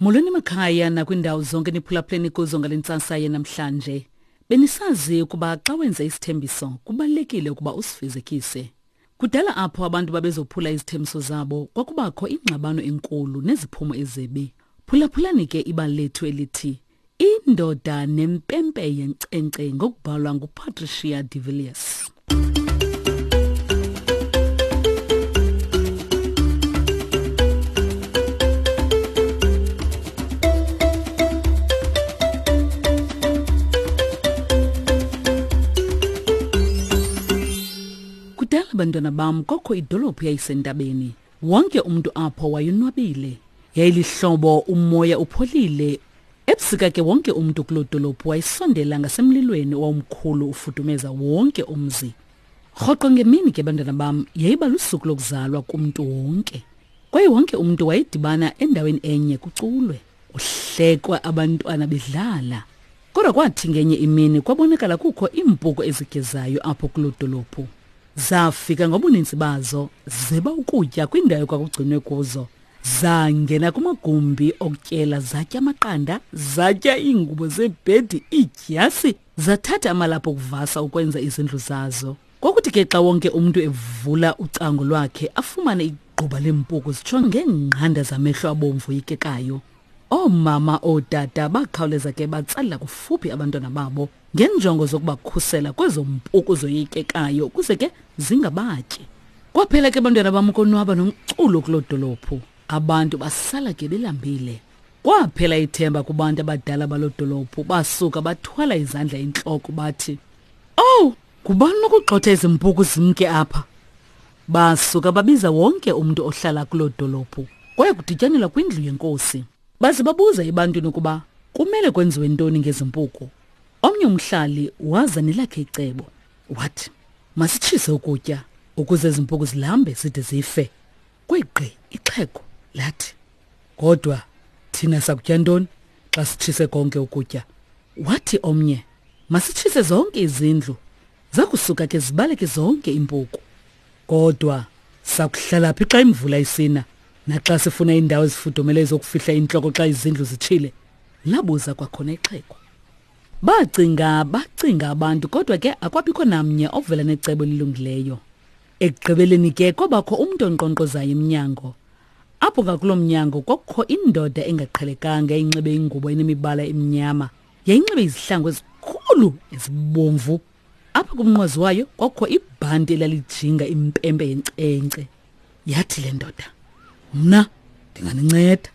Molweni emakhaya nakwindawo zonke niphulaphuleni kuzo ngale ntsasa yenamhlanje. Benisazi ukuba xa wenza isithembiso kubalulekile ukuba usifezekise. Kudala apho abantu babezophula izithembiso zabo kwakubakho ingxabano enkulu neziphumo ezibi. Phulaphulani ke ibali lethu elithi Indoda nempempe yenkcenkce ngokubhalwa nguPatricia de Villiers. Kudala bantwana bam kokho idolophu yayisentabeni. Wonke umntu apho wayonwabile. Yayilihlobo umoya upholile. Ebusika ke wonke umntu kuloo dolophu wayesondela ngasemlilweni owawumkhulu ufudumeza wonke umzi. Rhoqo ngemini ke bantwana bam yayiba lusuku lokuzalwa kumntu wonke. Kwaye wonke umntu wayedibana endaweni enye kuculwe, kuhlekwa abantwana bedlala. Kodwa kwathi ngenye imini kwabonakala kukho iimpuku ezigezayo apho kuloo dolophu. Zafika ngobuninzi bazo zeba ukutya kwindawo ekwakugcinwe kuzo. Zangena kumagumbi okutyela zatya amaqanda, zatya iingubo zebhedi, iidyasi, zathatha amalaphu okuvasa ukwenza izindlu zazo. Kwakuthi ke xa wonke umntu evula ucango lwakhe afumane igquba leempuku zitsho ngeengqanda zamehlo abomvu oyikekayo. Oomama ootata bakhawuleza ke batsalela kufuphi abantwana babo ngenjongo zokubakhusela kwezo mpuku zoyikekayo ukuze ke zingabatyi. Kwaphela ke bantwana bam ukonwaba nomculo kuloo dolophu. Abantu basala ke belambile. Kwaphela ithemba kubantu abadala baloo dolophu basuka bathwala izandla entloko bathi, Owu, ngubani nokugxotha ezi mpuku zimke apha? Basuka babiza wonke umntu ohlala kuloo dolophu. Kwaye kudityanelwa kwindlu yenkosi. Baze babuza ebantwini ukuba kumele kwenziwe ntoni ngezi mpuku. Omnye umhlali waza nelakhe icebo. Wathi, masitshise ukutya ukuze ezi mpuku zilambe zide zife. Kwegqi ixhego lathi, kodwa thina sakutya ntoni xa sitshise konke ukutya? Wathi omnye, masitshise zonke izindlu, zakusuka ke zibaleke zonke iimpuku. Kodwa sakuhlala phi xa imvula isina naxa sifuna iindawo ezifudumeleyo zokufihla intloko xa izindlu zitshile? Labuza kwakhona ixhego. Bacinga bacinga abantu kodwa ke akwabikho namnye ovela necebo elilungileyo. Ekugqibeleni ke kwabakho umntu onkqonkqozayo emnyango. Apho ngakuloo mnyango kwakukho indoda engaqhelekanga eyinxibe ingubo enemibala emnyama. Yayinxibe izihlangu ezikhulu ezibomvu. Apha kumnqwazi wayo kwakukho ibhanti elalijinga impempe yenkcenkce. Yathi le ndoda, mna ndinganinceda.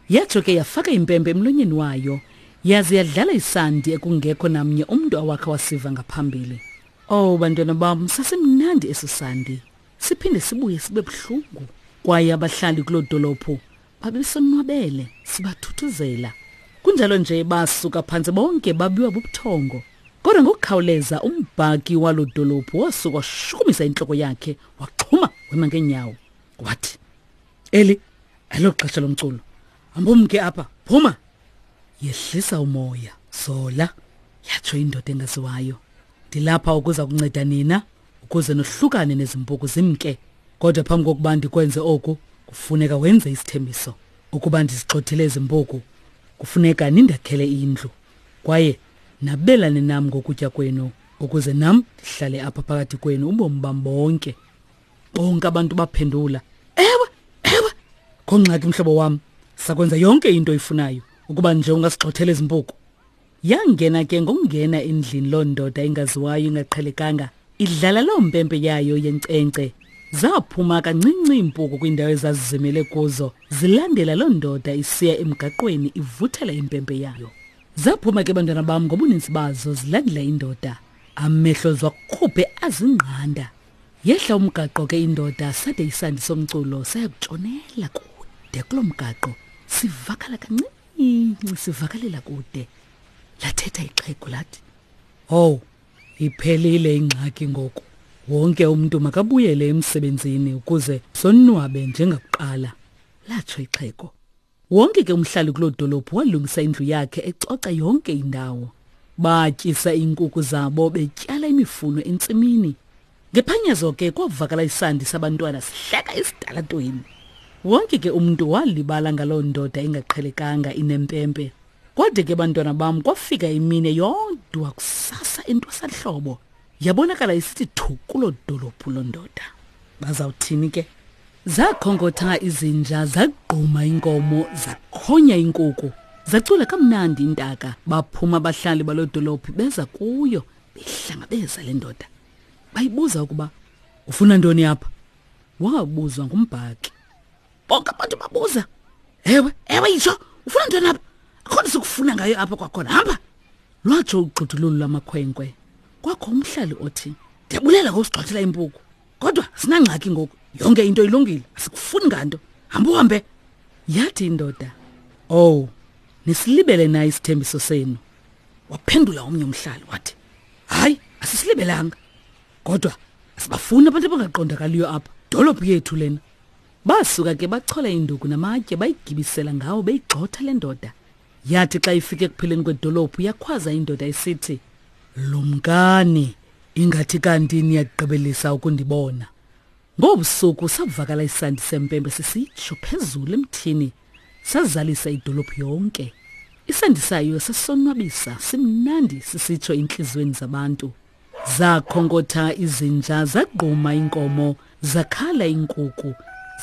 Yatsho ke yafaka impempe emlonyeni wayo yaze yadlala isandi ekungekho namnye umntu awakha wasiva ngaphambili. Oh bantwana bam, sasimnandi eso sandi. Siphinde sibuye sibe buhlungu. Kwaye abahlali kuloo dolophu babesonwabele sibathuthuzela. Kunjalo nje basuka phantsi bonke babiwa bubuthongo. Kodwa ngokukhawuleza umbhaki waloo dolophu wasuka washukumisa intloko yakhe waxhuma wema ngeenyawo. Wathi, Eli elo xesha lomculo. Hambumke apha, phuma! Yehlisa umoya, zola, yatsho indoda engaziwayo. Ndilapha ukuza kunceda nina ukuze nohlukane nezimpuku zimke. Kodwa phambi kokuba ndikwenze oku, kufuneka wenze isithembiso. Ukuba ndizigxothile ezi mpuku, kufuneka nindakhele indlu. Kwaye nabelane nam ngokutya kwenu ukuze nam ndihlale apha phakathi kwenu ubomi bam bonke. Bonke abantu baphendula, Ewe, ewe, kho ngxaki mhlobo wam, sakwenza yonke into oyifunayo ukuba nje ungasigxothela ezi mpuku. Yangena ke ngokungena endlini loo ndoda ingaziwayo ingaqhelekanga idlala loo mpempe yayo yenkcenkce. Zaphuma kancinci iimpuku kwiindawo ezazizimele kuzo zilandela loo ndoda isiya emgaqweni ivuthela impempe yayo. Zaphuma ke bantwana bam ngobuninzi bazo zilandela indoda. Amehlo ziwakhuphe azingqanda. Yehla umgaqo ke indoda sade isandi somculo saya kutshonela kude kuloo mgaqo sivakala kancinci sivakalela kude. Lathetha ixhego lathi, "Owu, iphelile ingxaki ngoku. Wonke umntu makabuyele emsebenzini ukuze sonwabe njengakuqala." Latsho ixhego. Wonke ke umhlali kuloo dolophu walungisa indlu yakhe ecoca yonke indawo. Batyisa iinkukhu zabo betyala imifuno entsimini. Ngephanyazo ke kwavakala isandi sabantwana sihleka esitalatweni. Wonke ke umntu walibala ngaloo ndoda ingaqhelekanga inempempe. Kwade ke bantwana bam kwafika imini yodwa kusasa entwasahlobo. Yabonakala isithi thu kuloo dolophu loo ndoda. Bazawuthini ke? Zakhonkotha izinja, zagquma inkomo, zakhonya inkuku. Zacula kamnandi intaka, baphuma abahlali baloo dolophu beza kuyo behlangabeza le ndoda. Bayibuza ukuba ufuna ntoni apha? Wabuzwa ngumbhaki. Bonke abantu babuza. Ewe, ewe yitsho, ufuna ntoni apha? Akho nto sikufuna ngayo apha kwakhona. Hamba. Lwatsho ugxudululu lwamakhwenkwe. Kwakho umhlali othi, Ndiyabulela ngokusigxothela impuku. Kodwa sinangxaki ngoku. Yonke into ilungile, asikufuni nganto. Hamba uhambe. Yathi indoda, "Oh, nisilibele na isithembiso senu?" Waphendula omnye umhlali wathi, "Hayi, asisilibelanga. Kodwa asibafuni abantu abangaqondakaliyo apha. Dolophu yethu lena." Basuka ke bachola induku namatye bayigibisela ngawo beyigxotha le ndoda. Yathi xa ifika ekupheleni kwedolophu yakhwaza indoda isithi, Lumkani, ingathi kanti niyagqibelisa ukundibona. Ngobusuku savakala isandi sempempe sisitsho phezulu emthini, sazalisa idolophu yonke. Isandi sayo sasonwabisa, simnandi sisitsho entliziyweni zabantu. Zakhonkotha izinja, zagquma iinkomo, zakhala iinkuku,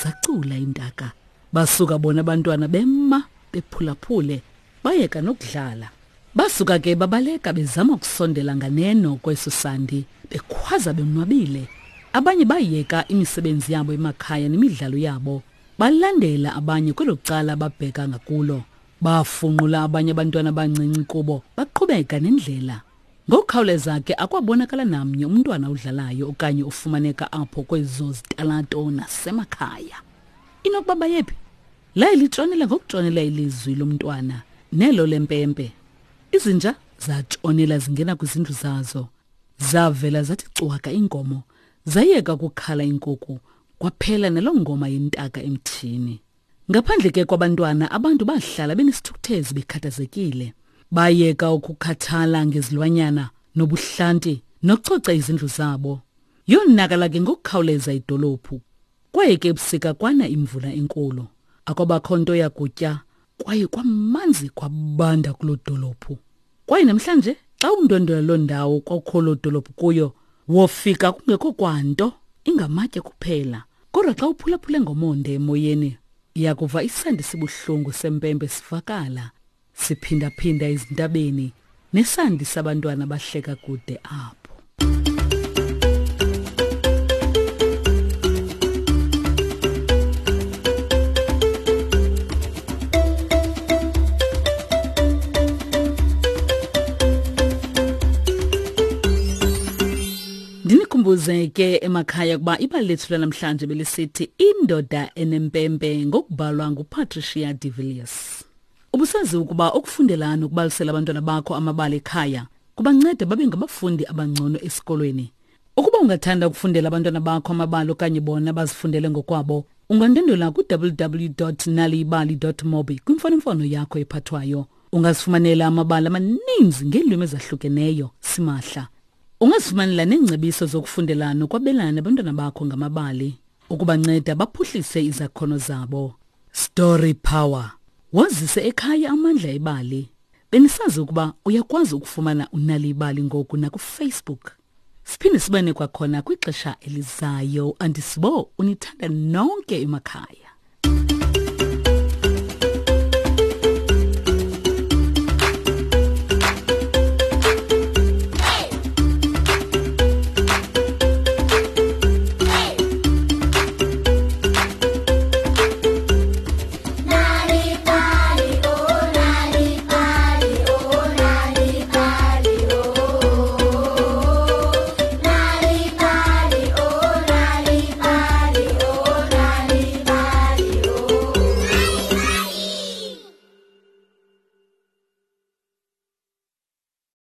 zacula iintaka. Basuka bona abantwana bema bephulaphule, bayeka nokudlala. Basuka ke babaleka bezama ukusondela nganeno kweso sandi, bekhwaza bonwabile. Abanye bayeka imisebenzi yabo emakhaya nemidlalo yabo, balandela abanye kwelo cala babheka ngakulo. Bafunqula abanye abantwana abancinci kubo, baqhubeka nendlela. Ngokukhawuleza ke akwabonakala namnye umntwana odlalayo okanye ofumaneka apho kwezo zitalato nasemakhaya. Inokuba bayephi? Laye litshonela ngokutshonela ilizwi lomntwana nelo lempempe. Izinja zatshonela zingena kwizindlu zazo. Zavela zathi cwaka iinkomo, zayeka ukukhala iinkuku, kwaphela naloo ngoma yentaka emthini. Ngaphandle ke kwabantwana, abantu bahlala benesithukuthezi bekhathazekile. Bayeka ukukhathala ngezilwanyana nobuhlanti nokucoca izindlu zabo. Yonakala ke ngokukhawuleza idolophu. Kwaye ke ebusika kwana imvula enkulu. Akwabakho nto yakutya kwaye kwamanzi kwabanda kuloo dolophu. Kwaye namhlanje xa undwendwela loo ndawo kwakukho loo dolophu kuyo, wofika kungekho kwanto ingamatye kuphela. Kodwa xa uphulaphule ngomonde emoyeni, uyakuva isandi sibuhlungu sempempe sivakala siphindaphinda ezintabeni nesandi sabantwana bahleka kude apho. Ndinikhumbuze ke emakhaya ukuba ibali lethu lanamhlanje belisithi Indoda Enempempe ngokubhalwa nguPatricia de Villiers. Ubusazi ukuba ukufundela nokubalisela abantwana bakho amabali ekhaya kubanceda babe ngabafundi abangcono esikolweni. Ukuba ungathanda ukufundela abantwana bakho amabali okanye bona bazifundele ngokwabo, ungandwendwela ku-www.naliyibali.mobi kwimfonomfono yakho ephathwayo. Ungazifumanela amabali amaninzi ngeelwimi ezahlukeneyo simahla. Ungazifumanela neengcebiso zokufundela nokwabelana nabantwana bakho ngamabali ukubanceda baphuhlise izakhono zabo. Story Power. Wazise ekhaya amandla ebali. Benisazi ukuba uyakwazi ukufumana unali ibali ngoku nakuFacebook. Siphinde sibane kwakhona kwixesha elizayo. Andisibo unithanda nonke emakhaya.